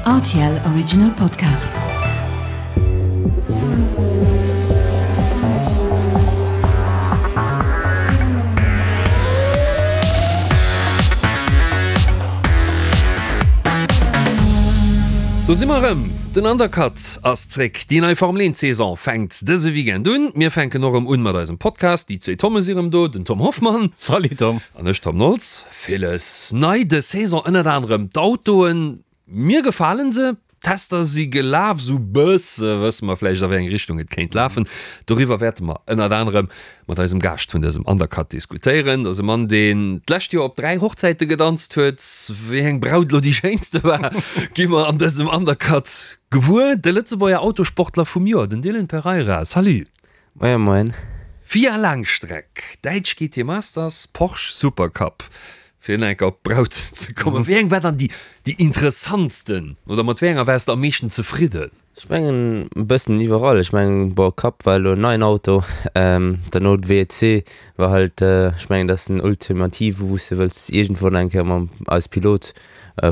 Rtl Original Podcast. Do si mer erëm, den Undercut ass zréck. Déi nei Formel 1 Saison fänkt dëse Weekend un. Mir fänken och erëm un mat eisem Podcast. Déi zwee Tomme si erëm do, den Tom Hoffmann. Salut Tom. An ech Tom Nolz. Villes nei dës Saison, ënnert anerem d'Autoen. Mir gefalen se, d'Tester si gelaf, sou bësse wësse mer vläicht a wéi eng Richtung et kéint lafen. Doriwwer wäerte mer ënnert anerem mat eisem Gaascht vun dësem Undercut diskutéieren. Dat ass e Mann, deen d'lescht Joer op 3 Hochzäite gedanzt huet. Wéi eng Braut elo déi schéinste war, gi mer an dësem Undercut gewuer. De Lëtzebuerger Autosportler vum Joer, den Dylan Pereira. Salut! Moien moien. FIA Laangstreck, Däitsch GT Masters, Porsche Supercup. Fir nach eng Kéier op d'Braut ze kommen, wéi eng war dann déi déi interessantsten oder mat wéi enger waars de am meeschten zefridden? Ech mengen e bëssen iwwerall. Ech mengen bon Cup war elo en neien Auto, derno d'WEC war halt, ech mengen dat ass den ultimative wou s de wëlls iergendwann eng Kéier mam als Pilot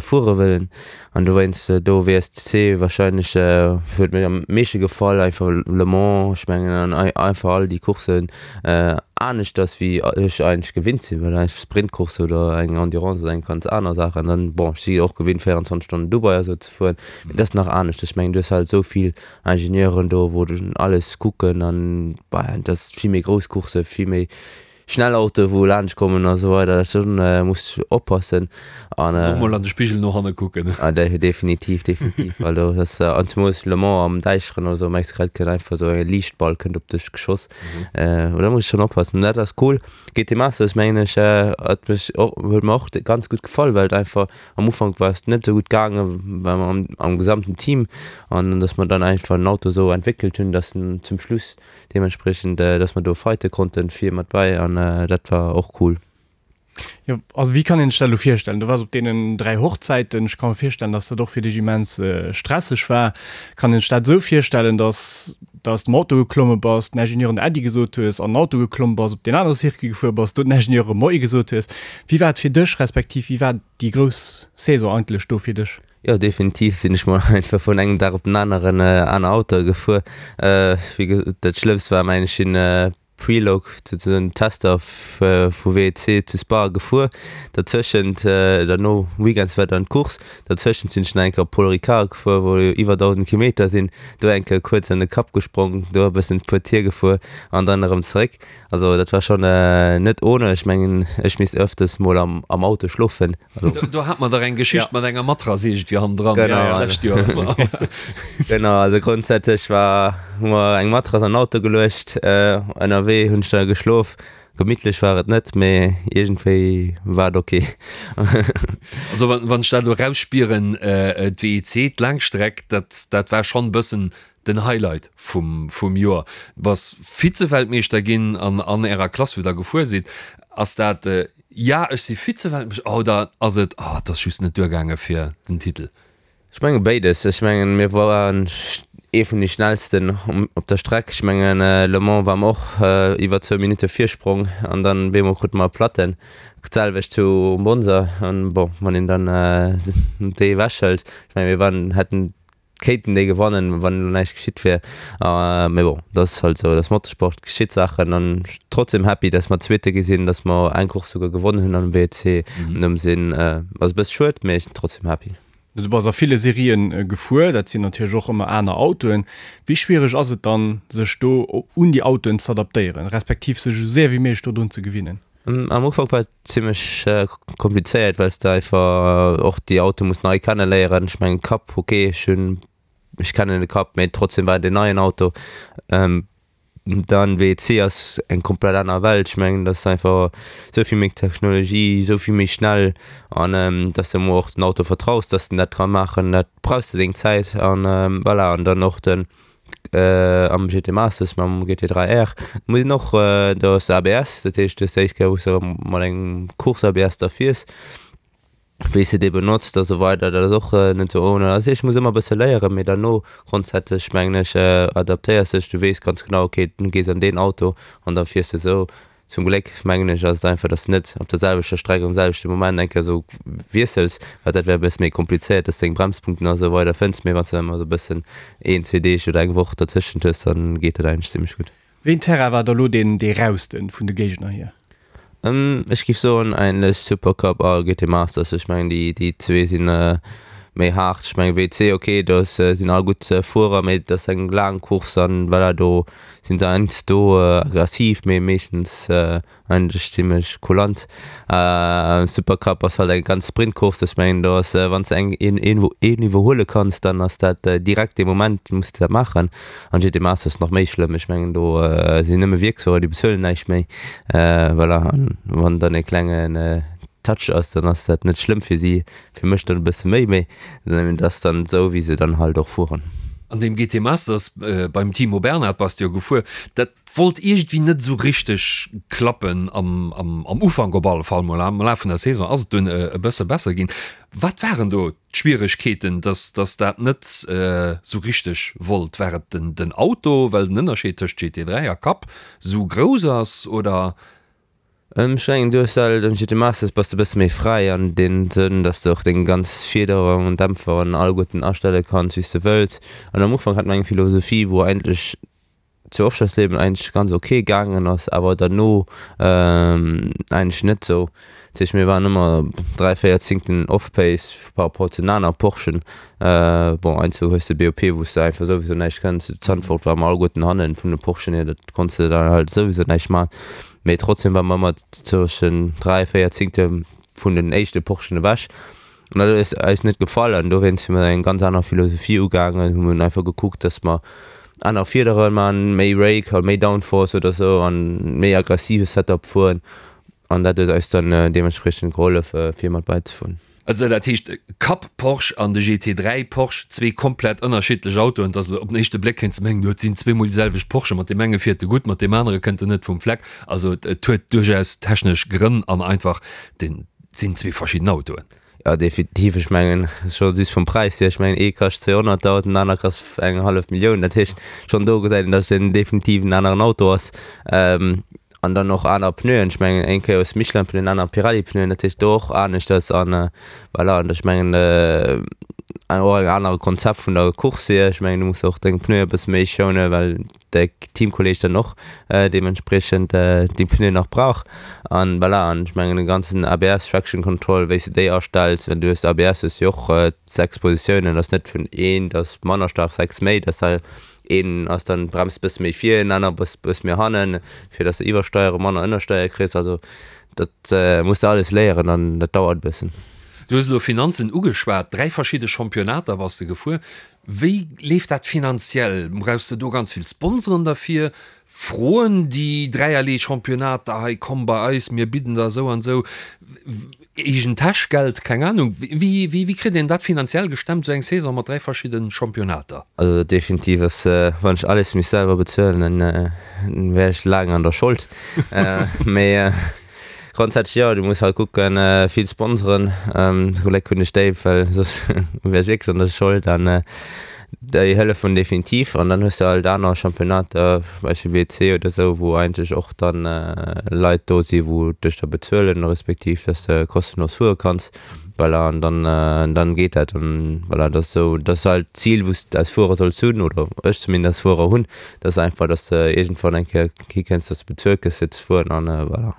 fuere wëllen an dowéinst do WSC wahrscheinlech huet mir am meeschte gefall, einfach Le Mans, ech mengen an einfach all déi Courssen aneschters wéi ech eigentlech gewinnt sinn, well eng Sprintcourse oder eng Endurance ass eng ganz aner Saach an dann bon ech si och gewinnt 24 Stonnen Dubai a sou ze fueren, mee dat ass nach anescht, ech mengen du hues halt esou vill Ingenieuren do wou alles kucken an bah dat ass vill méi grouss Coursse vill méi Schnell Autoe wou laanscht kommen a sou weider, dat schon muss oppassen an och mol an de Spigel no hanne kucken. Ah definitiv, definitiv, well do ass an zemoos Le Mans am Däischteren oder sou merks grad kënnt einfach sou e Liichtball kënnt op dech geschoss, da muss schon oppassen. Dat ass cool. GT Masters mengen ech hat mech och huet mer och ganz gutt gefall, well et einfach am Ufank war et net sou gutt gaange well mer am am gesamten Team an dass mer dann einfach den Auto sou entwéckelt hunn, dass en zum Schluss Deementspriechend, dass mer do fighte konnten, vir mat bei an dat war och cool. Jo, also wéi kann een sech dat elo virstellen? Du waars op deenen 3 Hochzäiten, ech ka mer virstellen, dass dat och fir dech immens stresseg war. Kann een sech dat esou virstellen, dass de aus dem Auto geklomme bass, den Ingenieuren Äddi gesot hues, an den Auto geklomm bass, op deen anere Circuit gefuer bass, do den Ingenieure Moie gesot hues? Wéi war et fir dech, respektiv wéi war déi grouss Saison eigentlech do fir dech? Jo definitiv sinn ech mol einfach vun engem Dag op den aneren aner Autoe gefuer. Wéi gesot dat schlëmmst war mengen ech sinn Prelog souzesoen Tester vu WEC zu Spa gefuer. Derzëschent derno Weekends war dann d'Course. Derzëschent sinn ech nach eng Kéier op Paul Ricard gefuer wou jo iwwer 1000 Kilometer sinn. Do eng Kéier kuerz an de Cup gesprong, do e bëssen puer Tier gefuer an dann erëm zeréck. Also dat war schon net ohne. Ech mengen ech misst öfters mol am am Auto schlofen. Also Do hat mer dach eng Geschicht mat enger Matrass iergendwéi hannendran Genau. d'lescht Joer. Genau, also grondsätzlech war hu mer eng Matrass an den Auto geluecht. Ënnerwee hunn ech da geschlof. Gemittlech war et net, mee iergendwéi war et ok. Also wann wann ech dat elo erausspieren, d'WEC, d'Laangstreck, dat dat war schonn e bëssen Den Highlight vum vum Joer, du bass Vize-Weltmeeschter ginn an an ärer Klass wou der gefuer sidd. Ass dat ja ech si Vize-Weltmeeschter oder ass et oh et ass just net duergaange fir den Titel? Ech menge béides. Ech mengen mir waren ee vun de schnellsten op der Streck. Ech mengen Le Mans war mer och iwwer zwou Minutte Virsprong an dann bemol krute mer Platten. D'selwecht zu Monza an bon wann een dann déi ewechhëlt, ech menge mir waren hätten Kéinten déi gewannen, wann elo näischt geschitt wier. Mee bon, dat ass halt esou, dat ass Motorsport, geschitt Saachen. An trotzdem happy, dass mer Zweete gi sinn, dass mer eng Course souguer gewonnen hunn am WEC. An deem Sinn ass e bësse schued, mee ech sinn trotzdem happy. Du bass a ville Serien gefuer, dat sinn natierlech och ëmmer aner Autoen. Wéi schwiereg ass et dann, sech do un déi Autoen z'adaptéieren, respektiv sech esou séier wéi méiglech dodrun ze gewinnen? Am Ufank war et zimmlech komplizéiert, well s de einfach och déi Autoe muss nei kenne léieren. Ech mengen Cup, ok, ech hunn, ech kennen de Cup, mee trotzdem war et en neien Auto. Dann WEC ass eng komplett aner Welt. Ech mengen, dat ass einfach esou vill méi Technologie, esou vill méi schnell an dass de emol och den Auto vertraus, dass en dat ka maachen, dat brauchs de deng Zäit an voilà. An dann och den Am GT Masters mam GT3 R muss een och, do ass ABS, dat heescht du hues d'éischt Kéier wou s de mat engem Course ABS da fiers, wéi s de dee benotzt a sou weider, dat ass och net sou ohne. Also ech muss ëmmer e bësse léieren, mee derno grondsätzlech mengen ech adaptéiers dech, du weess ganz genau ok du gees an deen Auto an da fiers de sou. Zum Gléck mengen ech ass et einfach, dass de net op der selwechter Streck am selwechte Moment eng Kéier esou wiessels, well dat wär e bësse méi komplizéiert, dass de deng Bremspunkten a sou weider fënns. Mee wann s de ëmmer esou e bëssen een, zwee Deeg oder eng Woch dertëschent hues, dann geet dat eigentlech zimmlech gutt. Wéi een Terrain war da lo deen dee rausten vun de Géigner hier? Ech giff soen eigentlech Supercup a GT Masters. Ech mengen déi déi zwee sinn méi haart. Ech mengen WC ok do sinn all gutt Fuerer, mee et ass eng laang Course an voilà do sinn se heiansdo aggressiv, mee meeschtens Eigentlech zimlech kulant. Supercup ass halt eng ganz Sprintcourse, ech mengen do ass wann s de eng een een een iwwerhuele kanns, dann ass dat direkt dee Moment muss de dat maachen. An GT Masters nach méi schlëmm, ech mengen do sinn nëmme Wierksfuerer, déi bezuelen näischt méi. Voilà, an wann dann e klengen Touch ass, dann ass dat net schlëmm fir si, fir mech dann e bësse méi, mee dat ass dann esou wéi se dann halt och fueren. An deem GT Masters beim Timo Bernhard bass de jo gefuer, dat Wollt iergendwéi net esou richteg klappen am Ufank op alle Fall mol. Am Laf vun der Saison ass et dunn e bësse besser ginn. Wat waren do d'Schwieregkeeten, dass dass dat net esou richteg wollt? War et den Auto, well den Ënnerscheed tëscht GT3 a Cup esou grouss ass oder? Ech mengen du hues alt am GT Masters bass de bësse méi fräi an deem Sënn, dass de och deng ganz Fiederung an Dämpfer an alleguerten astelle kanns wéi s de wëlls. An am Ufank hat mer eng Philosophie wou eigentlech zu Oschersleben eigentlech ganz ok gaangen ass, awer derno eigentlech net sou. Dat heescht mir waren ëmmer 3, 4 Zingten off-pace par rapport zu den aner Porschen. Bon heiansdo hues de BOP wou s de einfach souwisou näischt kënns. Zu Zandvoort ware mer alleguerten hannen vun de Porschen hier, dat konns de dann halt souwisou näischt man. Mee trotzdem ware mer ëmmer zwëschen 3, 4 Zingte vun den éischte Porschen ewech. An dat huet eis net gefall an dowéinst hu mir eng ganz aner Philosophie ugaangen, hu mir einfach gekuckt, dass mer aner Fiedere man, méi Rake, méi Downforce oder sou an méi aggressive Setup fueren an dat huet eis dann deementspriechend gehollef fir mat bäizefueren. Also dat heescht Cup Porsche an de GT3 Porsche, zwee komplett ënnerschiddlech Autoen, dass op den éischte Bléck kéints de mengen, jo et sinn zweemol déi selwecht Porsche, mat deem enge fiert e gutt, mat deem anere kënnt en net vum Fleck. Also et huet duerchaus technesch Grënn an einfach den Et sinn zwee verschidden Autoen. Jo, definitiv. Ech mengen, scho just vum Präis hier, ech mengen, ee kascht 200.000, den aner kascht eng hallef Millioun. Dat heescht, schonn do gesäit een, datt et en definitiv en aneren Auto ass. An dann och aner Pneuen. Ech mengen, eng Kéier hues de Michelin-Pneuen, aner Pirelli-Pneuen. Dat heescht, do och aneschters. An voilà, an ech mengen, och en anere Konzept vun der Course hier. Ech mengen, du muss och deng Pneue e bësse méi schounen, well de Teamkolleg dann och deementspriechend déi Pneuen nach brauch an voilà an ech mengen de ganzen ABS Traction Control wéi s de déi astells, well du hues ABS hues jo och 6 Positiounen, ass net vun eent ass manner staark 6 méi, dass da een ass dann bremst bësse méi vir, en aner bëss bëss méi hannen, fir dass de iwwersteiere manner ënnersteier kriss, also dat muss de alles léieren an dat dauert e bëssen. Du hues elo Finanzen ugeschwat, 3 verschidde Championnater bass de gefuer. Wéi leeft dat finanziell? Brauchs de do ganz vill Sponsoren derfir? Froen déi dräierlee Championnater hei, komm bei eis, mir bidden der esou an esou eegen Täschgeld, keng Ahnung. Wéi, wéi kritt een dat finanziell gestemmt, esou eng Saison mat 3 verschidde Championnater? Also definitiv ass, wann ech alles misst selwer bezuelen, dann wär ech laang an der Schold. Mee Grondsätzlech jo, du muss halt kucken, vill Sponsoren, zum Gléck hunn ech déi, well soss wär ech wierklech an der Schold an déi hëllefen definitiv. An dann hues de halt aner Championnater, zum Beispill WC oder esou, wou eigentlech och dann Leit do si wou dech da bezuelen, respektiv dass de kostenlos fuere kanns. Voilà, an dann dann geet dat an voilà, dat ass esou, dat ass halt d'Zil wou s de als Fuerer solls hunn, oder ech zumindest als Fuerer hunn, dat ass einfach, dass de iergendwann eng Kéier hikënns, dass de bezuelt gëss fir ze fueren an voilà.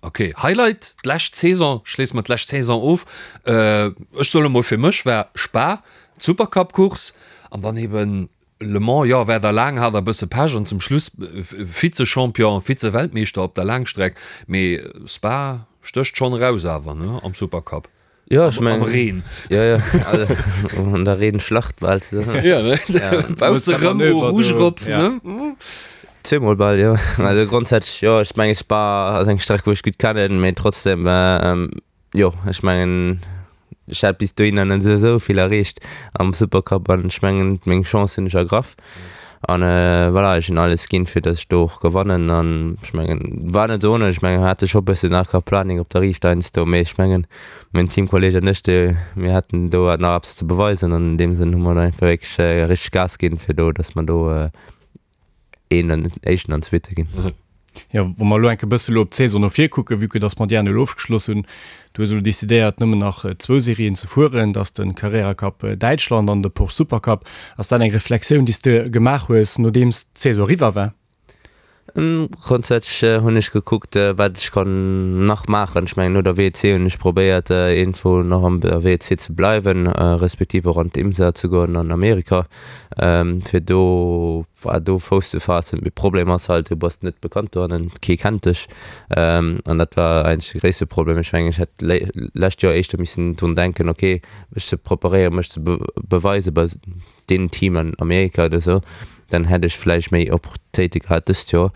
Ok, Highlight d'lescht Saison, schléisse mer d'lescht Saison of. Ech soen emol fir mech war Spa d'Supercup-Course an dann eben Le Mans, jo, war der laang, hat e bësse Pech an zum Schluss Vize-Champion, Vize-Weltmeeschter op der Laangstreck, mee Spa stécht schonn eraus awer, ne, am Supercup. Jo, ech mengen. Am Reen. Jo, jo, also an der Reenschlacht bal. Jo, ne, bausse rëm Eau Rouge erop, ne. Zweemol bal, jo. Also grondsätzlech, jo, ech menge Spa ass eng Streck, wou ech gutt kennen, mee trotzdem, Jo, ech mengen, ech hat bis dohinner net esou vill erreecht am Supercup an ech mengen, meng Chance hunn ech ergraff. An voilà, ech hunn alles ginn, fir datt ech do och gewannen. An ech mengen, war net ohne, ech mengen, mir hate scho bëssen Aquaplaning op der Riicht heiansdo, mee ech mengen, mäin Teamkolleeg an ech, déi, mir haten do nach eppes ze beweisen an an deem Sënn hu mer do einfach wierklech richteg Gas ginn, fir do, datt mer do een an éischten an zweete ginn. Jo, wa mer elo enk e bësse elo op d'Saison no vir kucken, vue que dass mer déi aner elo ofgeschloss hunn, du hues elo decidéiert nëmmen nach zwou Serien ze fueren, dat ass de Carrera Cup Däitschland an de Porsche Supercup. Ass dat eng Reflexioun, déi s de gemaach hues, nodeems d'Saison eriwwer war? Grondsätzlech hunn ech gekuckt, wat ech kann nach maachen. Ech mengen, no der WEC hunn ech probéiert, iergendwou nach an der WEC ze bleiwen, respektiv och an d'IMSA ze goen an Amerika, fir do, do Fouss ze faassen. Mee Problem ass halt, du bass net bekannt dohannen, kee kennt dech. An dat war eigentlech de gréisste Problem. Ech mengen, ech hätt lescht Joer éischter missen drun denken, okay, mech ze preparéieren, mech ze beweisen bei deem Team an Amerika oder sou, dann hätt ech vläicht méi Opportunitéite gehat dëst Joer.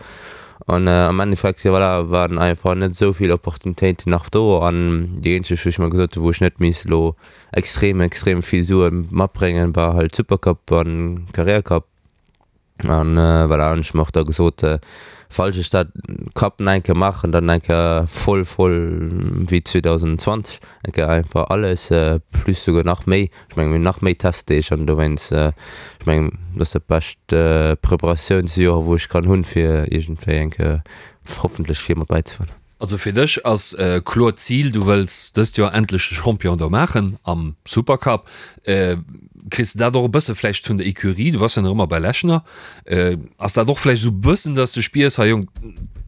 An am Endeffekt, jo voilà, waren einfach net esou vill Opportunitéiten nach do. An déi eenzeg, wou ech mer gesot hunn, wou ech net misst elo extrem, extrem vill Sue matbréngen, war halt Supercup an Carrera Cup. An voilà, hunn ech mer och da gesot, falls ech dat Cup nach eng Kéier maachen, dann eng Kéier voll, voll wéi 2020, eng Kéier einfach alles, plus souguer nach méi. Ech mengen, mir hunn nach méi Testdeeg an dowéinst, ech mengen, dat ass dat bescht Preparatiounsjoer, wou ech kann hunn, fir iergendwéi eng Kéier hoffentlech vir mat bäizefueren. Also fir dech ass kloer d'Zil, du wëlls dëst Joer endlech de Champion do maachen am Supercup. Kriss de dat och e bësse vläicht vun der Ecurie, du bass jo nach ëmmer bei Lechner, ass dat och vläicht esou e bëssen, dass de spiers, hei Jong,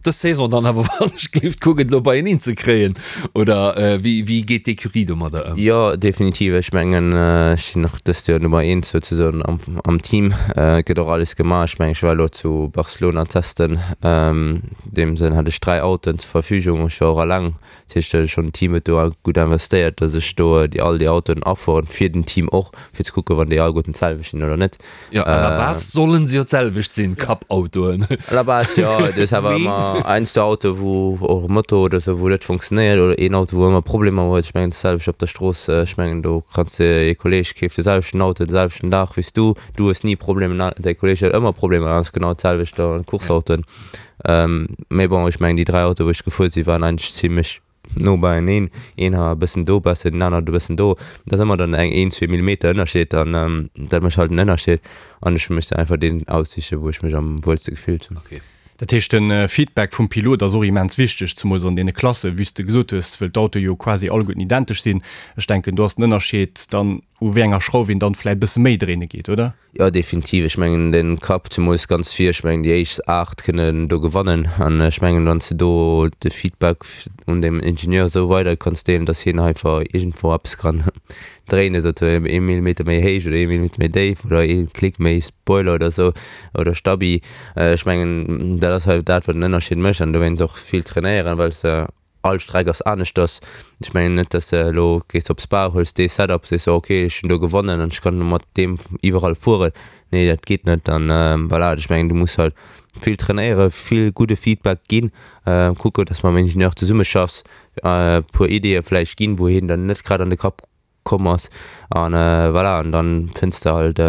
dës Saison dann awer wann ech géif kucken et elo beieneen ze kréien oder wéi wéi geet d'Ecurie domadder ëm? Jo, definitiv. Ech mengen, ech sinn och dëst Joer Nummer eent souzesoen am am Team. Et gëtt och alles gemaach. Ech mengen, ech war elo zu Barcelona testen. An deem Sënn hat ech 3 Autoen zur Verfügung. Ech war och alleng. Dat heescht, schonn den Team huet do gutt investéiert, datt ech do déi all déi Autoen afueren, fir den Team och, fir ze kucken, wann déi alleguerten d'selwecht sinn oder net. Jo, à la base sollen se jo d'selwecht sinn, Cup-Autoen. À la base, jo. Du hues awer ëmmer heiansdo Autoe wou och e Motor oder esou, wou net funktionéiert oder een Auto, wou ëmmer Problemer huet. Ech mengen, d'selwecht op der Strooss. Ech mengen, do kanns de, ee Kolleeg keeft de selwechten Auto de selwechten Dag wéi s du, du hues ni Problemer, däi Kolleeg huet ëmmer Problemer, dat ass genau d'selwecht an Course-Autoen. Mee bon, ech mengen déi 3 Autoe wou ech gefuer sinn, waren eigentlech zimlech no beieneen. Een war e bëssen do besser, deen anert e bëssen do. Dat ass ëmmer dann eng een, zwee Millimeter Ënnerscheed an dat mécht halt den Ënnerscheed. An ech hu mech dann einfach deen aussiche wou ech mech am wuelste gefillt hunn. Okay. Dat heescht de Feedback vum Pilot ass och immens wichteg, zemools an deene Klassen, wéi s de gesot hues, wëll d'Autoe jo quasi alleguerten identesch sinn. Ech denken do ass den Ënnerscheed dann u wéi enger Schrauf een dann vläit e bësse méi dréine geet, oder? Jo definitiv, ech mengen den Cup zemools ganz vir, ech mengen déi éischt 8 kënnen do gewannen an ech mengen wann s de do de Feedback un dem Ingenieur esou weider kanns deelen, dass hien einfach iergendwou eppes kann dréinen, sou ee Millimeter méi héich oder ee Millimeter méi déif oder ee Klick méi Spoiler oder esou oder Stabi, ech mengen dat ass halt dat wat den Ënnerscheed mécht an dowéinst och vill trainéieren, well s de All Streck ass aneschters. Ech mengen net, dass de elo gees op Spa, huels dee Setup, sees de, ok, ech hunn do gewonnen an ech kann mat deem iwwerall fueren. Nee, dat geet net. An voilà, ech mengen, du muss halt vill trainéieren, vill gudde Feedback ginn, kucken, dass mam Ingenieur zesummeschaffs, e puer Ideeë vläicht ginn, wou hien dann net grad an de Kapp komm ass an voilà an dann fënns de halt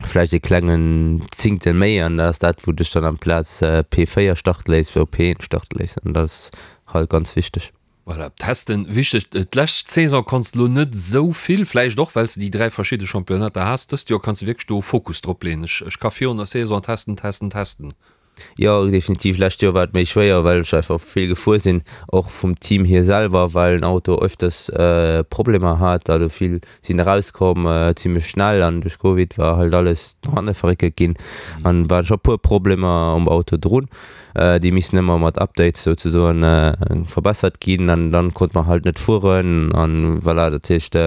vläicht e klengen Zingtel méi an dat ass dat wou dech dann amplaz P4 starte léisst op P1 starte léisst an dat ass halt ganz wichteg. Voilà, testen wichteg. D'lescht Saison konns de lo net esou vill, vläicht och well s de déi 3 verschidde Championnater has. Dëst Joer kanns de wierklech do Fokus drop leeën. Ech ka virun der Saison testen, testen, testen. Jo, definitiv. Lescht Joer war et méi schwéier, well ech einfach vill gefuer sinn, och vum Team hier selwer, well den Auto öfters Problemer hat. Also vill sinn erauskomm zimmlech schnell an duerch Covid war halt alles no hanne verréckelt ginn an waren scho puer Problemer um Auto drun, déi missen ëmmer mat Updates souzesoen verbessert ginn an dann konnt mer halt net fueren an voilà, dat heescht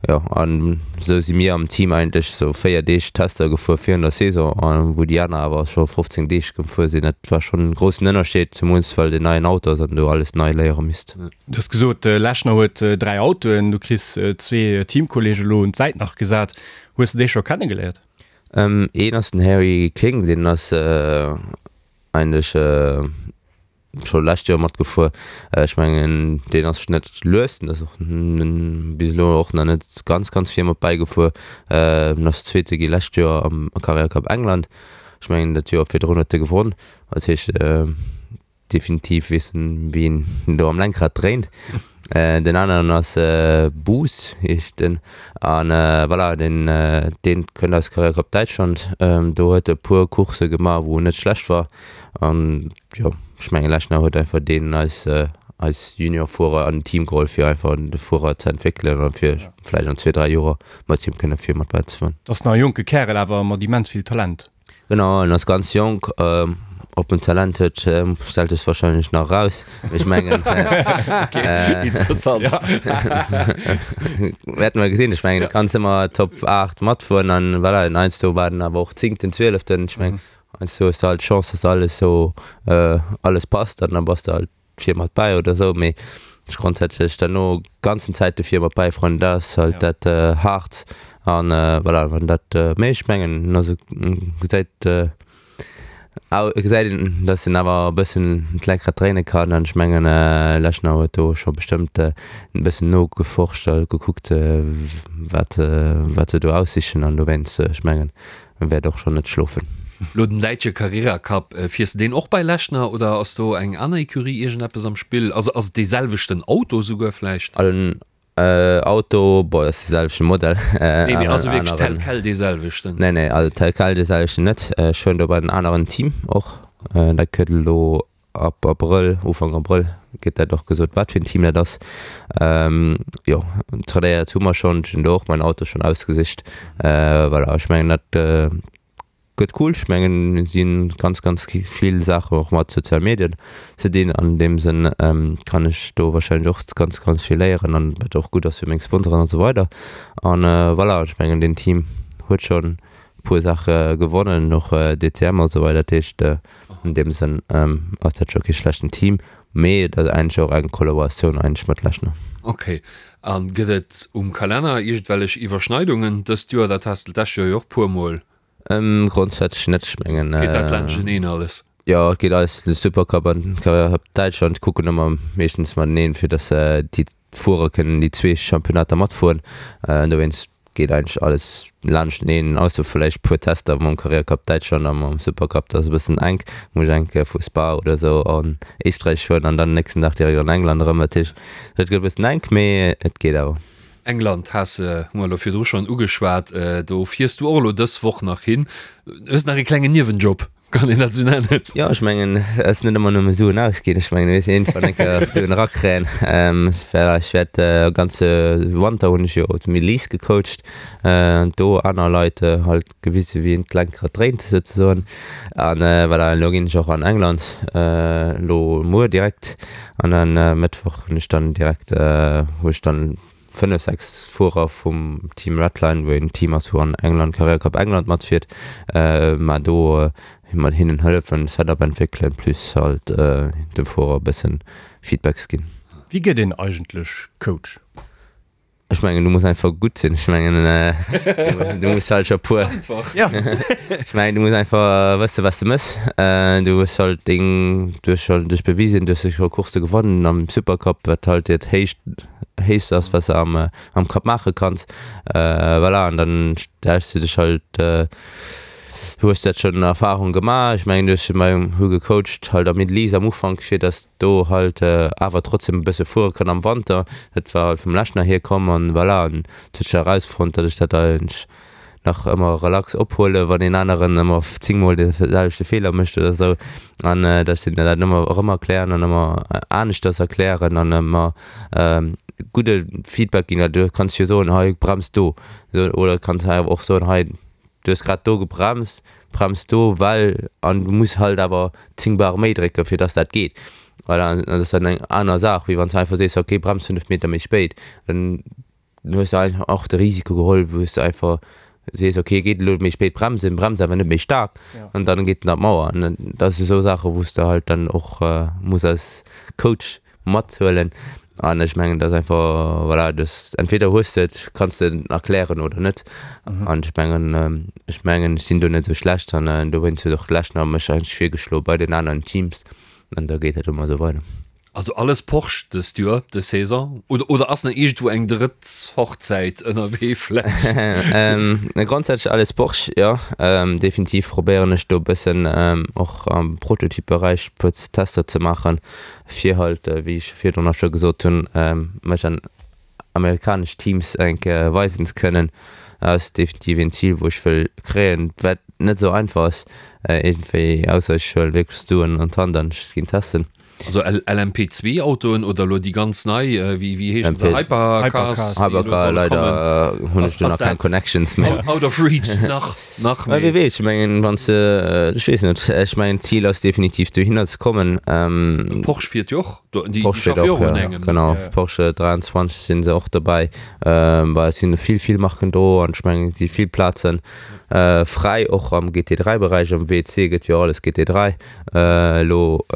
Jo, an esou si mir am Team eigentlech sou 4 Deeg Tester gefuer virun der Saison, wou déi aner awer scho 15 Deeg gefuer sinn. Dat war schonn en groussen Ënnerscheed, zemools well et en neien Auto ass an du alles nei léiere misst. Du hues gesot, Lechner huet 3 Autoen, du kriss zwee Teamkolleege elo un d'Säit nach gesat. Hues de déi scho kennegeléiert? Een ass den Harry King, deen ass eigentlech scho lescht Joer matgefuer. Ech mengen deen ass net lues, den ass och bis elo och nach net ganz ganz vir mat bäigefuer. En ass Zweete gi lescht Joer am Carrera Cup England. Ech mengen dat Joer virdrun huet e gewonn. Dat heescht. definitiv weess en wéi een do am Lenkrad dréint. Den aneren ass Buus heescht en an voilà deen deen kënnt aus Carrera Cup Däitschland. Do huet e puer Coursse gemaach wou en net schlecht war an jo ech mengen Lechner huet einfach deen eis eis Juniorfuerer an den Team geholl fir einfach de Fuerer ze entwéckelen an fir vläicht an zwee 3 Joer mat him kënne vir mat bäi ze fueren. Ass nach e jonke Kärel awer mat immens vill Talent. Genau, en ass ganz jonk. Ob en Talent huet, stellt sech wahrscheinlech nach eraus. Ech mengen, Interessant. Wäerte mer gesinn. Ech mengen, du kanns ëmmer Top 8 matfueren an voilà, en heiansdo war en awer och Zéngten, Zwieleften. Ech mengen, heiansdo hues de halt d'Chance, dass alles esou, alles passt an da bass de halt vir mat bäi oder sou, mee ech grondsätzlech derno ganzen Zäit de vir mat bäi fueren, dat ass halt dat haart an voilà, wann dat, mee ech mengen also gesäit gesäit een dass en awer e bëssen d'Lenkrad dréine kann an ech mengen Lechner huet do scho bestëmmt e bëssen nogeforscht a gekuckt wat wat se do aussichen an dowéinst ech mengen En wäert och schon net schlofen. Lo den däitsche Carrera Cup, fiers de deen och bei Lechner oder ass do eng aner Ecurie iergendeppes am Spill? Also ass et dee selwechten Auto souguer vläicht? Also den Auto, bon ass dee selwechte Modell. Nee mee also wierklech tel quel dee selwechten? Nee nee, also tel quel dee selwechten net. Ech fueren do bei en aneren Team och, dat gëtt elo Ab Abrëll, Ufank Abrëll gëtt dat och gesot, wat fir en Team dat ass. Jo, trainéiert hu mer schonn, ech hunn do och mäin Auto schonn ausgesicht. Voilà, ech mengen dat gëtt cool. Ech mengen et si ganz, ganz vill Saachen och mat sozial Medien ze dinn. An deem Sënn kann ech do warscheinlech och ganz, ganz vill léieren an wat och gutt ass fir meng Sponsoren an esou weider. An voilà, ech mengen deen Team huet schonn e puer Saache gewonnen, och DTM a sou weider. Dat heescht an deem Sënn ass dat scho kee schlechten Team, mee et ass eigentlech och eng Kollaboratioun eigentlech mat Lechner. Ok. A gëtt et um Kalenner iergendwellech Iwwerschneidungen dëst Joer? Dat has de d'lescht Joer jo och puer mol. Grondsätzlech net, ech mengen. Geet dat laanschteneen alles? Jo, et geet alles, de Supercup an den Carrera Cup Däitschland kucken ëmmer meeschtens mateneen, fir datt déi Fuerer kënnen déi zwee Championnater matfueren. Dowéinst geet eigentlech alles laanschteneen, ausser vläicht puer Tester mam Carrera Cup Däitschland a mam Supercup, dat ass e bëssen enk. Muss ech eng Kéier vu Spa oder esou an Éisträich fueren an dann den nächsten Dag direkt an England erëm. Dat heescht, dat gëtt e bëssen enk, mee et geet awer. England has de, hu mer elo virdru schonn ugeschwat, do fiers du och elo dës Woch nach hin. Hues nach e klengen Niewenjob. Kann een dat sou nennen? Jo, ech mengen, et ass net ëmmer nëmme Suen ausginn. Ech mengen, et muss een iergendwann eng Kéier och Suen erakréien. Ech wäert e ganze Wanter hunn ech jo zu Middle East gecoacht, do aner Leit halt gewise wéi een d'Lenkrad dréint souzesoen. An voilà, elo ginn ech och an England, elo muer direkt. An dann Mëttwoch hunn ech dann direkt, hu ech dann 5, 6 Fuerer vum Team Redline, wou een Team ass wou an England Carrera Cup England matfiert, mä do mat hinnen hëllefen, Setup entwéckelen, plus halt de Fuerer e bëssen Feedbacks ginn. Wéi gëtt een eigentlech Coach? Ech mengen du muss einfach gutt sinn. Ech mengen du muss halt scho puer, ech mengen du muss einfach wësse wat s de mëss. Du hues halt deng, du hues scho dech bewisen, du hues scho Coursse gewonnen am Supercup, wat halt dat héicht héichst ass wat se am am Cup maache kanns. Voilà an dann stells du dech halt hues dat schonn Erfahrung gemaach. Ech mengen du hues bei hu gecoacht halt am Middle East am Ufank fir datt do halt awer trotzdem e bësse fuere kann am Wanter. Dat war halt vum Lechner hier komm an voilà an et huet sech erausfonnt datt ech dat eigentlech nach ëmmer relax ophuelen, wann een aneren ëmmer zéngmol de selwechte Feeler mécht oder esou. An dass ech hinnen dat ëmmer erëm erklären an ëmmer aneschters erklären an ëmmer gudde Feedback ginn. Well du kanns jo soen, hei brems do, oder kanns awer och soen, hei du hues grad do gebremst, brems do, well an du muss halt awer 10 Bar méi drécken, fir dass dat geet. Voilà, an dat ass dann eng aner Saach, wéi wann s du einfach sees, okay brems 5 Meter méi spéit. Dann Dann hues de einfach och de Risiko geholl, wou s de einfach sees, okay, geet elo méi spéit bremsen, brems awer net méi staark an dann geet en an d'Mauer. An dat si sou Saachen, wou s de halt dann och muss als Coach mathuelen. An ech mengen, dat ass einfach, voilà, dass entweder hues de et, kanns de et erklären oder net. An ech mengen, ech mengen, ech sinn do net esou schlecht an dowéinst huet och d'Lechner mech eigentlech virgeschloe bei den aneren Teams an da geet dat ëmmer esou weider. Also alles Porsche dëst Joer, dës Saison? Oder, oder ass nach iergendwou eng drëtt Hochzäit ënnerwee vläicht? Grondsätzlech alles Porsche, jo. Definitiv probéieren ech do e bëssen och am Prototyp-Beräich e puer Tester ze maachen, fir halt, wéi ech virdrun och scho gesot hunn, mech an amerikanesch Teams eng Kéier weisen ze kënnen. Dat ass definitiv een Zil, wou ech wëll kréien, wat net esou einfach ass iergendwéi, ausser ech huele wierklech d'Suen an d'Hand an ech ginn testen. Also LMP2 Autoen oder elo déi ganz nei, wéi wéi heeschen se, Hypercars, déi elo solle kommen? Hunn ech do nach keng Connections méi. Out of reach nach, nach méi. Wie weess, ech mengen wann s de, ech weess net, ech mengen d'Zil ass definitiv dohinner ze kommen. Porsche fiert jo och do, déi schaffe jo och un engem. Genau, Porsche 23 sinn se och dobäi. Bah et sinn vill, vill Marken do an ech mengen et gi vill Plazen fräi, och am GT3 Beräich, am WEC gëtt jo alles GT3. Elo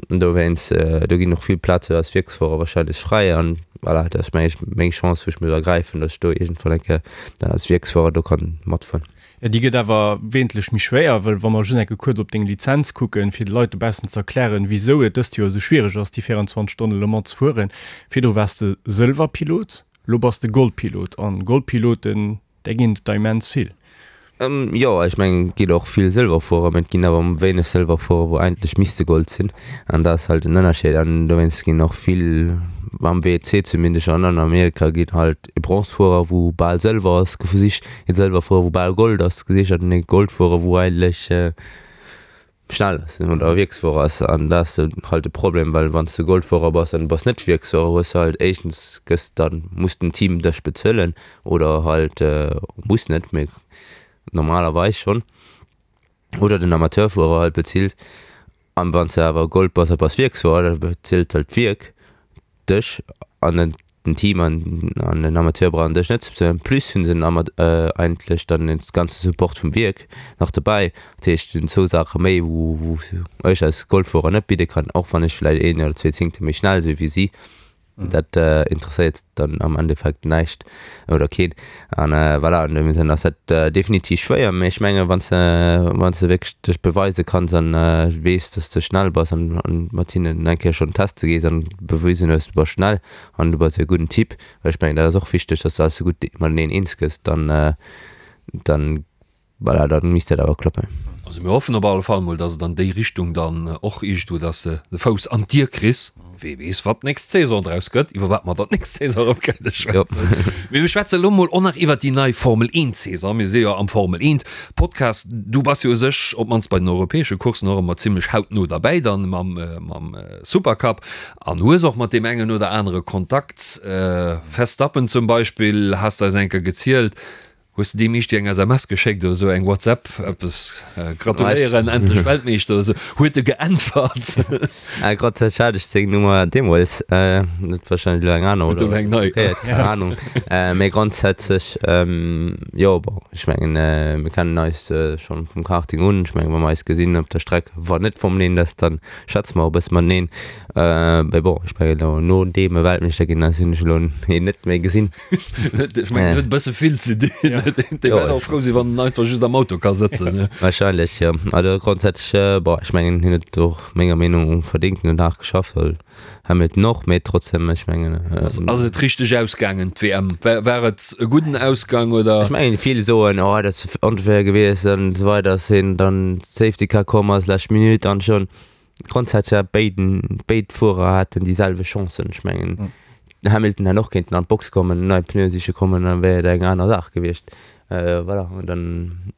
dowéinst, do ginn och vill Plaze als Wierksfuerer wahrscheinlech fräi an voilà, dat ass meng ech meng Chance wou ech muss ergräifen, datt ech do iergendwann eng Kéier dann als Wierksfuerer do kann matfueren. Jo, déi gëtt awer wesentlech méi schwéier, well wa mer just eng Kéier kuerz op deng Lizenz kucken, fir de Leit dobaussen ze erklären, wisou et dëst Joer esou schwiereg ass, déi 24 Stonnen Le Mans ze fueren. Virdru waars de Sëlwerpilot, elo bass de Goldpilot an Goldpiloten, Där ginn et der immens vill. Jo, ech mengen et ginn och vill Sëlwerfuerer, mä et ginn awer wéineg Sëlwerfuerer wou eigentlech misste Gold sinn an dat ass halt den Ënnerscheed an dowéinst ginn och vill, am WEC zumindest an an Amerika ginn halt e Bronzefuerer wou bal Sëlwer ass gesicht, e Sëlwerfuerer wou bal Gold ass gesicht an e Goldfuerer wou eigentlech schnell ass oder Wierksfuerer ass an dat ass halt de Problem, well wann s de Goldfuerer bass an du bass net Wierksfuerer hues de halt éischtens gëss dann muss den Team dech bezuelen oder halt muss net mee normalerweis schonn oder den Amateurfuerer halt bezilt an wann s de awer Gold bass a bass Wierksfuerer da bezilt halt d'Wierk dech an den den Team an an den Amateur brauchen dech net ze bezuelen. Plus hunn se den Ama eigentlech dann den ganze Support vum Wierk nach dobäi. Dat heescht, et sinn zwou Saache méi, wou wou ech als Golffuerer net bidde kann, och wann ech vläicht een oder zwee Zéngte méi schnell si wéi si. Dat interesséiert dann am Endeffekt näischt oder keen. An voilà, an deem Sënn ass dat definitiv schwéier, mee ech menge wann s de wann s de wierklech dech beweise kanns an weess, dass s de schnell bass an mat hinnen eng Kéier schonn teste gees an bewisen hues, du bass schnell, An du bass e gudden Typ, well ech mengen, dat ass och wichteg, dass du alles esou gutt mateneen eens gëss, dann, dann, voilà, dann misst dat awer klappen. Also mir hoffen op alle Fall mol, dass et an déi Richtung dann och iergendwou, dass de de Fouss an d'Dier kriss. Wee weess, wat d'nächst Saison draus gëtt, iwwer wat mer dann d'nächst Saison erëm kënne schwätzen. Mee mir schwätzen elo mol och nach iwwer déi nei Formel 1 Saison. Mir si jo am Formel 1 Podcast. Du bass jo u sech, op d'mannst bei den europäesche Courssen, och ëmmer zimlech hautno derbäi dann mam, mam Supercup. An hues och mat deem engen oder anere Kontakt. Verstappen zum Beispill, has de eis eng Kéier gezielt. Hues de deem eescht eng SMS geschéckt oder esou, eng WhatsApp, eppes, gratuléieren, endlech Weltmeeschter oder esou? Huet e geäntwert? Grondsätzlech hat ech seng Nummer deemools, huet warscheinlech elo eng aner oder eng nei, keng Anung. Mee grondsätzlech, jo, bon, ech mengen, mir kennen eis schonn vum Karting un. Ech mengen, wa mer eis gesinn op der Streck, wann net Formel 1 ass, dann schwätze mer och e bësse mateneen. Mee bon, ech mengen elo nodeem e Weltmeeschter ginn ass, hunn ech elo hien net méi gesinn. Ech mengen, en huet e bësse vill ze dinn. Dee wäert och frou sinn, wann en einfach just am Auto ka sëtzen. Wahrscheinlech, jo. Also grondsätzlech, bon, ech mengen, hien huet och menger Meenung no verdéngt, hien huet haart geschafft, well Hamilton och, mee trotzdem, ech mengen. Ass et richteg ausgaangen, d'WM? War et e gudden Ausgang, oder? Ech mengen, vill soen, oh, dat ass onfair gewiescht an esou weider, ass hien dann Safety Car komm ass, lescht Minutt an schonn. Grondsätzlech hat béiden, béid Fuerer haten déi selwecht Chancen. Ech mengen, den Hamilton hätt och kéinten an d'Box kommen, nei Pneue siche kommen, dann wär et eng aner Saach gewiescht. Voilà, an dann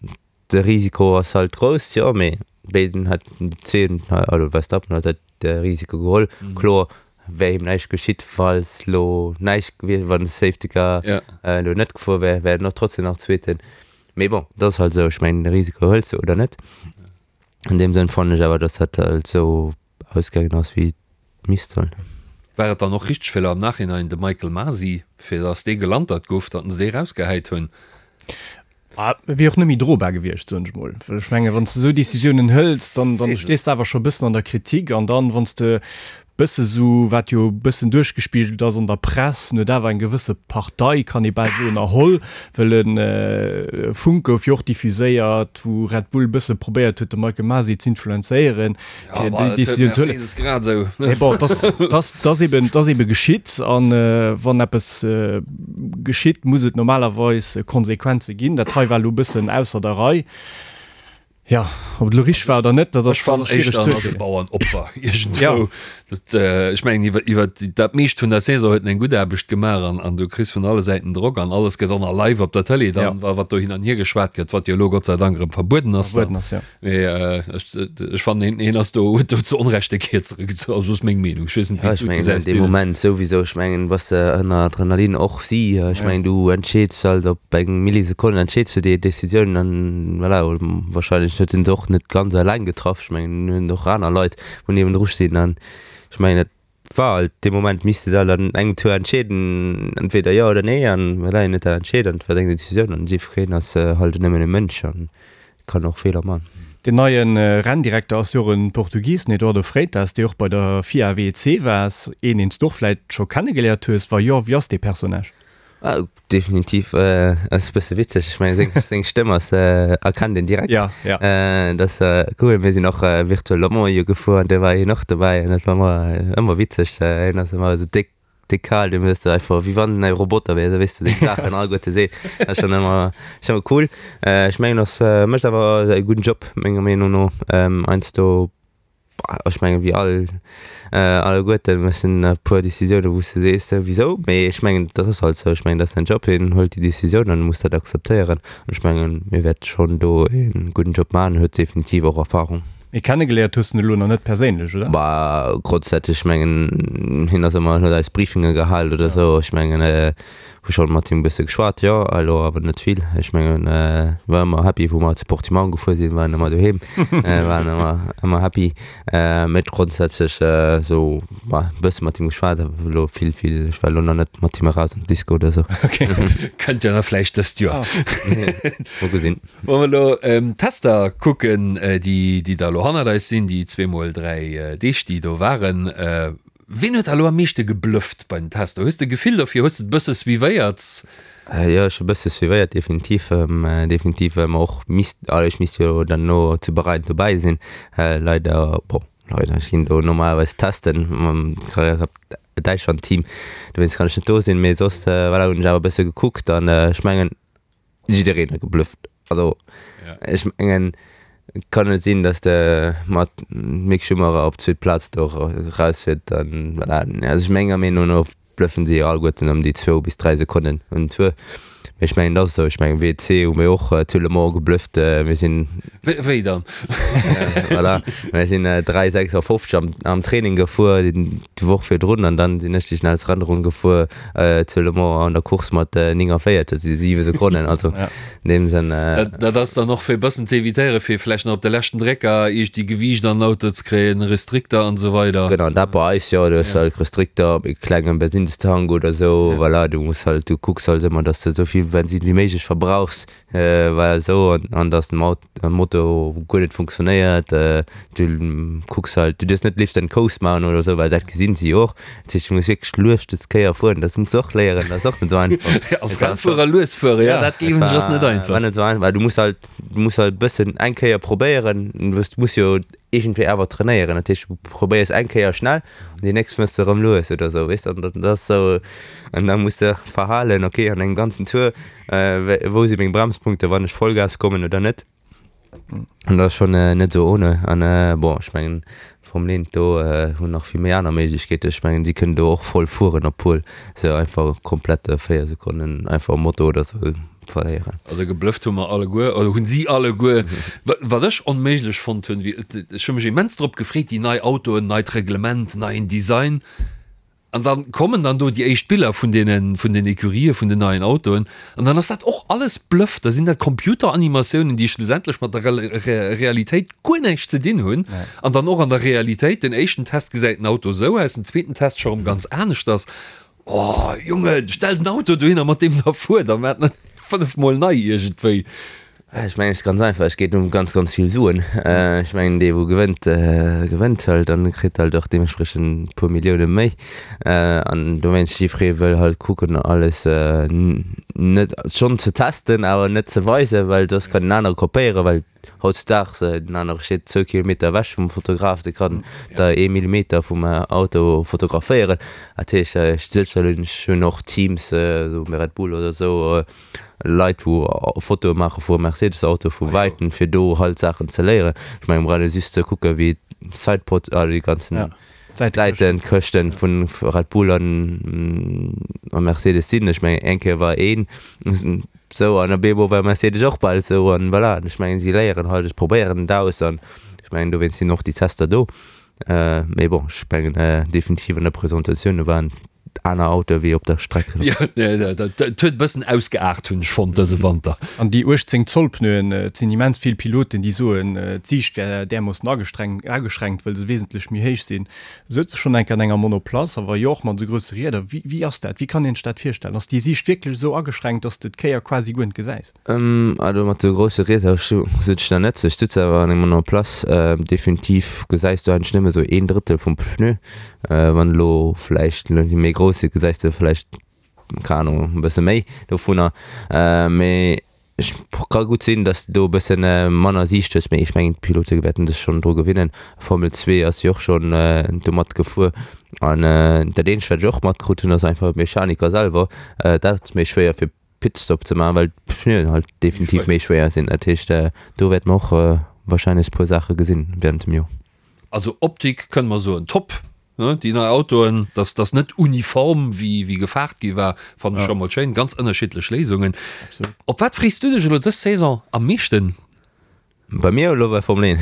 de Risiko ass halt grouss, jo, mee béiden hätten déi zwee, also Verstappen huet halt de Risiko geholl. Kloer wär him näischt geschitt, falls lo näischt gewiescht, wann de Safety Car elo net gefuer wär, wär en och trotzdem nach Zweeten. Mee bon, dat ass halt esou, ech mengen, de Risiko hëls de oder net. An deem Sënn fannen ech awer, dass dat halt esou ausgaangen ass, wéi et misst sollen. War et dann och richteg fir elo am Nachhinein de Michael Masi, fir dass dee gelantert gouf, datt se dee rausgehäit hunn? Ah, et wier och net méi drobar gewiescht, soen ech mol. Well ech mengen, wann s de esou Decisiounen hëls, dann, dann stees de awer scho e bëssen an der Kritik. An dann, wann s de. Bësse sou, wat jo e bëssen duerchgespigelt ass an der Press, en huet awer eng gewësse Partei, kann ee bal soen, erholl, well e Funk gouf jo och diffuséiert, wou Red Bull e bësse probéiert huet, de Michael Masi z'influenzéieren, fir déi Decisioun ze huelen. Mee bon, et ass eben, et ass ebe geschitt an wann eppes geschitt, muss et normalerweis Konsequenze ginn. Dat hei war elo e bëssen ausser der Rei. Jo, ob et elo richteg war oder net, dat ass Ech fannen schwiereg éischter ze en ass e urteelen. Bauernopfer Ja. iergendwou. Dat, ech mengen iwwer iwwer dat meescht vun der Saison huet en eng gutt Aarbecht gemaach an an du kriss vun alle Säiten Drock an alles gëtt och nach live op der Tëlee dann, Ja. wa wat do hin an hier geschwat gëtt, wat jo elo Gott sei Dank erëm verbueden ass Verbueden dann. ass, ja. Mee ech ech fannen hien hien ass do huet do zu Onrecht de Kierzere gezu, also ass meng Meenung. Ech weess net Ja, wéi s ech du et mengen an gesäis deem Dylan. Moment souwisou, ech mengen bass de ënner Adrenalin och si, ech Ja. mengen du entscheeds halt op eng Millisekonn entscheeds du déi Decisioun an voilà, wahrscheinlech huet en se och net ganz eleng getraff, ech mengen hunn och aner Leit wou niewendru stinn an ech mengen et war halt dee Moment misst de halt an engem Tour entscheeden, entweder jo oder nee an voilà, hien huet dat entscheet an et war seng Decisioun an jiddwereen ass halt nëmmen e Mënsch an kann och Feeler man. Den neie Renndirekter ass jo och e Portugis, den Eduardo Freitas, dee och bei der FIA WEC war, een deen s du och vläit scho kennegeléiert hues. Wa jo, wéi ass dee Personnage? Ah, definitiv ass e bësse witzeg. Ech mengen seng seng Stëmm ass erkennt een direkt. Ja, ja. Dat ass cool. Mir sinn och Virtual Le Mans jo gefuer an do war hien och dobäi an dat war ëmmer ëmmer witzeg. Hien ass ëmmer esou déck déck kal, dee hues de einfach wéi wann en e Roboter wär, esou weess de seng Saachen alleguerte seet. Dat ass schonn ëmmer schonn ëmmer cool. Ech mengen ass mécht awer e gudden Job menger Meenung no. Heiansdo Ech mengen, wéi all, alleguerten mussen e puer Décisiounen, wou s de sees, wisou? Mee ech mengen, dat ass halt esou. Ech mengen, dat ass säin Job, hien huelt déi Décisioun an e muss dat akzeptéieren. An ech mengen, hie wäert schonn do e gudden Job maachen, huet definitiv och Erfahrung. Mee kennegeléiert hues de en elo nach net perséinlech, oder? Bah, grondsätzlech, ech mengen, hien ass ëmmer, huet eis Briefinge gehal oder esou. Ech mengen, Hu schon mat him bësse geschwat, jo, elo awer net vill. Ech mengen, war ëmmer happy wou mer zu Portimão gefuer sinn, waren ëmmer doheem, waren ëmmer, ëmmer happy. Mee grondsätzlech esou, bah, bësse mat him geschwat, awer elo vill, vill, ech war elo nach net mat him eraus an d'Disco oder esou. Kënnt jo da vläicht dëst Joer. Mol gesinn. Wa mer elo d'Tester kucken, déi, déi da elo hannert eis sinn, déi zweemol 3 Deeg, déi do waren, Ween huet der elo am meeschte geblufft bei den Tester? Hues de e Gefill dofir? Hues de et e bësse suivéiert? Jo, ech hu e bësse suivéiert, definitiv. Definitiv, well mer och misst, also ech misst jo dann no zu Bahrain dobäi sinn. Leider, bon, leider, ech ginn do normalerweis testen mam Carrera Cup Däitschland Team, dowéinst kann ech net do sinn. Mee soss, voilà, hunn ech awer e bësse gekuckt an ech mengen, jiddereen huet geblufft. Also ech mengen, et kann net sinn, datt de mat Mick Schumacher op d'zweet Plaz do erausfiert. Dann voilà. Also ech menger Meenung no bluffen si alleguerten ëm déi zwou bis 3 Sekonnen un Tour. Mee ech mengen, dat ass esou. Ech mengen WC hu mir och zu Le Mans geblufft. Mir sinn. Wéi dann? Voilà, mir sinn 3,56 am am Training gefuer déi Woch virdrun an dann sinn ech déi schnellst Rennronn gefuer. Zu Le Mans an der Course mat 49, dat si 7 Sekonnen, also an deem Sënn. Dat ass dann och fir e bëssen ze evitéieren, fir vläicht nach op de leschten Drécker iergdi Gewiicht an den Auto ze kréien, Restrikter an esou weider. Genau, dat bei eis, jo, du hues halt Restrikter, e klenge Bensinnstank oder esou, voilà, du muss halt, du kucks halt ëmmer, datt s de esou vill Bensinn wéi méiglech verbrauchs. Well esou an dass den Motor guer net funktionéiert, du kucks halt, du duerfs net Lift and Coast maachen oder esou, well dat gesinn si jo och. Dat heescht, du muss wierklech lues des Kéier fueren, dat muss de och léieren, dat ass och net esou einfach. Als Rennfuerer lues fueren, jo, dat gleewen ech ass net einfach. War net esou einfach, well du muss halt, du muss halt e bëssen eng Kéier probéieren, du muss jo iergendwéi awer trainéieren, dat heescht, du probéiers eng Kéier schnell an déi nächst fuers de erëm lues oder esou, weess de, an dat ass esou, an da muss de verhalen, okay, an engem ganzen Tour Wou si meng Bremspunkte, wann ech Vollgas kommen oder net? An dat ass schonn net esou ohne. An bon, ech mengen Formel 1 do hunn nach vill méi aner Méiglechkeeten. Ech mengen si kënnen do och voll fueren, obwuel se einfach komplett 4 Sekonnen einfach um Moto oder esou verléieren. Also geblufft hu mer alleguer, oder hunn si alleguer. Wat ech onméiglech fonnt hunn, ech hu mech immens drop gefreet, déi nei Autoen, neit Reglement, neien Design. An dann kommen dann do déi éischt Biller vun deenen, vun den Ecurië vun den neien Autoen. An dann ass dat och alles Bluff. Da sinn dat Computeranimatiounen, déi schlussendlech mat der Realitéit guer näischt ze dinn hunn. An dann och an der Realitéit, den éischten Test gesäit den Auto esou aus, den zweeten Test scho rëm ganz aneschters. Oh Jongen, stell den Auto dohinner, mat deem der fuert, a maacht net fënnefmol nei iergendwéi. Ech mengen, et ass ganz einfach, et geet ëm ganz, ganz vill Suen. Ech mengen, dee wou gewënnt, gewënnt halt an kritt halt och deementspriechend e puer Millioune méi. An dowéinst, jiddweree wëll halt kucken alles net schonn ze testen, awer net ze weisen, well soss kann en anere kopéieren, well hautzudaags den anere steet zwou Kilometer ewech vum Fotograf, dee kann der ee Millimeter vum Auto fotograféieren. Dat heescht, sécherlech hunn och Teams, esou wéi Red Bull oder esou, Leit wou Fotoe maache vu Mercedes Auto vu wäiten fir do halt Saachen ze léieren. Ech mengen brauch ee just ze kucke wéi d'Sidepod ah déi ganzen Säitenkëschten vun Red Bull an a Mercedes sinn. Ech mengen eng Kéier war een sou an op eemol war Mercedes och bal sou an voilà. Ech mengen si léieren halt, ech probéieren et aus an ech mengen dowéinst sinn och déi Tester do. Mee bon ech mengen definitiv an der Presentatioun do waren aner Autoe wéi op der Streck. Jo, dat huet e bëssen ausgeaart, hunn ech fonnt dëse Wanter. An déi 18 Zoll Pneuen, et sinn immens vill Piloten, déi soen, d'Siicht wär därmoossen ageschränkt, wëll se wesentlech méi héich sinn. Souz de schonn eng Kéier an enger Monoplace? A wa jo, och mat esou grousse Rieder, wéi wéi ass dat? Wéi kann een sech dat virstellen? Ass déi Siicht wierklech esou ageschränkt, dass de d'Kéier quasi guer net gesäis? Also mat esou grousse Rieder sutz ech nach net. Ech sutz awer an enger Monoplace. Definitiv gesäis du eigentlech nëmme esou een Drëttel vum Pneu. Wann elo vläicht elo déi méi grouss sinn, gesäis de vläicht, keng Ahnung, e bësse méi dovunner. Mee ech ka gutt sinn, datt s de do e bësse manner Siicht hues, mee ech mengen d'Pilote wäerten sech schonn dru gewinnen. Formel 2 ass jo och schonn domat gefuer. An dat eenzegt wat ech och matkrut hunn, ass einfach d'Mechaniker selwer, dat ass méi schwéier fir Pitstop ze maachen, well d'Pneuen halt definitiv méi schwéier sinn. Dat heescht, do wäerte mer och warscheinlech e puer Saache gesinn während dem Joer. Also Optik kënne mer soen top, ne, déi nei Autoen, dass dass net uniform wéi wéi gefaart gi war, fannen ech scho mol schéin, ganz ënnerschiddlech Léisungen. Op wat frees du dech elo dës Saison am meeschten? Bei mir elo bei Formel 1?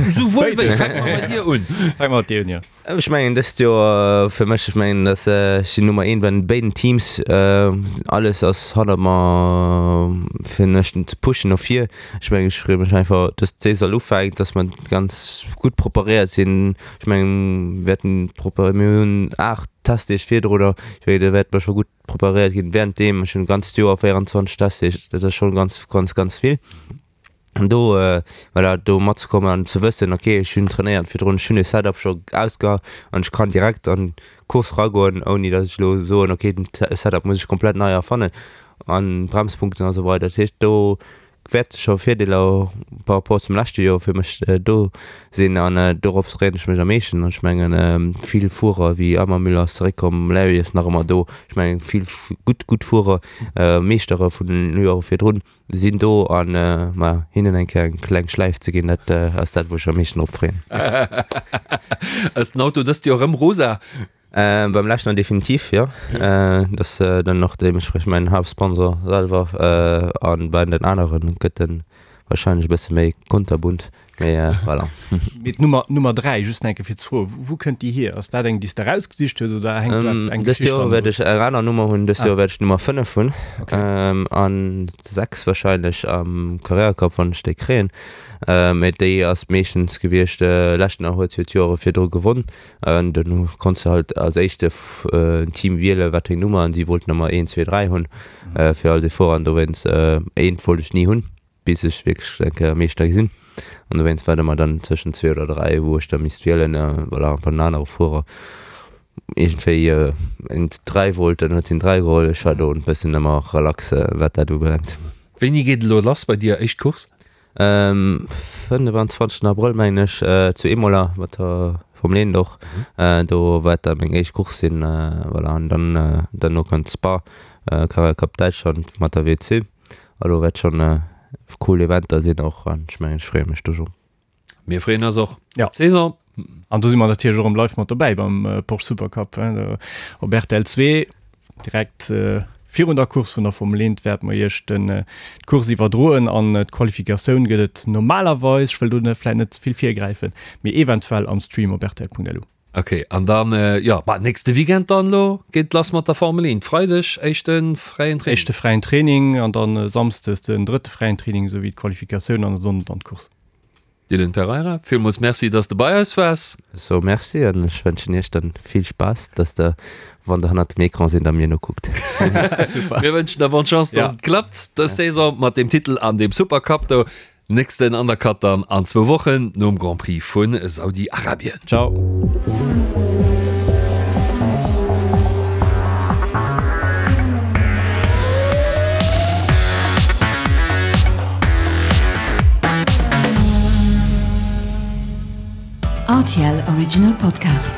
Souwuel wéi, fänke mer bei dir un. Fänke mer mat dir un, jo. Ech mengen dëst Joer fir mech, ech mengen dass ech sinn Nummer eent bei den béiden Teams, alles ass hannert mer fir mech ze pushen no vir. Ech mengen ech freeë mech einfach dass d'Saison ufänkt, dass mer ganz gutt preparéiert sinn. Ech mengen wäerten proper, mir hunn 8 Testdeeg virdrunner, ech mengen do wäerte mer scho gutt preparéiert ginn währenddeem. Ech hunn d'ganzt Joer 24 Testdeeg, dat ass schonn ganz ganz ganz vill. An do, voilà, do matzekommen an ze wëssen, ok, ech hunn trainéiert virdrun, ech hunn e Setup scho ausgeha an ech kann direkt an d'Course eragoen, ouni datt ech elo soen, ok, den Setup muss ech komplett nei erfannen an Bremspunkten a sou weider. Dat heescht, do wäerte scho Virdeeler par rapport zum leschte Joer fir mech do sinn an dorops freeën ech mech am meeschten. An ech mengen, vill Fuerer wéi Ammermüller ass zeréckkomm, Larry ass nach ëmmer do, ech mengen vill gutt, gutt Fuerer, Meeschtere vun den Joere virdrun. Sinn do an ma hinnen eng Kéier eng kleng Schläif ze ginn, dat ass dat wou ech am meeschten drop freeën. Ass den Auto dëst Joer rëm rosa? Beim leschten definitiv, jo. Dat ass dann och deementspriechend mäin Haaptsponsor selwer an bei den aneren gëtt en wahrscheinlech e bësse méi kunterbunt. Mee voilà. Mee d'Nummer, d'Nummer 3, just nach eng Kéier fir ze froen, wou kënnt déi hier? Ass dat eng, déi s de erausgesicht hues oder hänkt do eng Dëst Geschicht Joer wäert ech eng aner Nummer hunn. Dëst Joer wäert ech d'Nummer 5 hunn. An 6 wahrscheinlech am Carrera Cup, wann ech déi kréien. Mee déi ass meeschtens gewiescht, leschten Joer huet se jo d'Joere virdru gewonn. An dann konns de halt als éischte en Team wielen, wat fir eng Nummer an si wollten ëmmer 1, 2, 3 hunn fir all déi Fuerer. An dowéinst, eent wollt ech ni hunn. bis ech wierklech eng Kéier Meeschter gi sinn. An dowéinst war et ëmmer dann tëschent zwee oder dräi, wou ech da misst wielen. Voilà, wann en anere Fuerer iergendwéi en dräi wollt, dann huet hien dräi geholl. Ech war do e bëssen ëmmer relax, wat dat ubelaangt. Wéini geet et elo lass bei dir, éischt Course? 25 Abrëll mengen ech, zu Imola mat der Formel 1 och. Do wäert da meng éischt Course sinn. Voilà, an dann derno kënnt Spa, Carrera Cup Däitschland mat der WC. Elo wärt schon cool Eventer sinn och an ech mengen ech freeë mech do schon. Mir freeën eis och. Ja. Saison. An do si mer natierlech och erëm live mat dobäi beim Porsche Supercup op rtl 2. Direkt virun der Course vun der Formel 1 wäerte mer iech den d'Course iwwerdroen an d'Qualifikatioun gëtt et normalerweis, ech wëll do vläit net ze vill virgräifen, mee eventuell am Stream op rtl.lu. Ok, an dann, jo, bah, nächste Weekend dann elo geet et lass mat der Formel 1. Freideg éischte fräien Training. Éischte fräien Training an dann Samsdes den drëtte fräien Training esou wéi d'Qualifikatioun an e Sonnden dann d'Course. Dylan Pereira, villmools Merci, dass de bei eis waars. Ech soe Merci an ech wënschen Iech dann vill Spaass, dass der, wann der hannert dem Ecran sinn, da mir nokuckt. Super. Mir wënschen der bonne Chance, dass et klappt dës Saison mat deem Titel an deem Supercup do. Nächsten Undercut dann an zwou Wochen nom Grand Prix vu Saudi-Arabien. Ciao. RTL Original Podcast.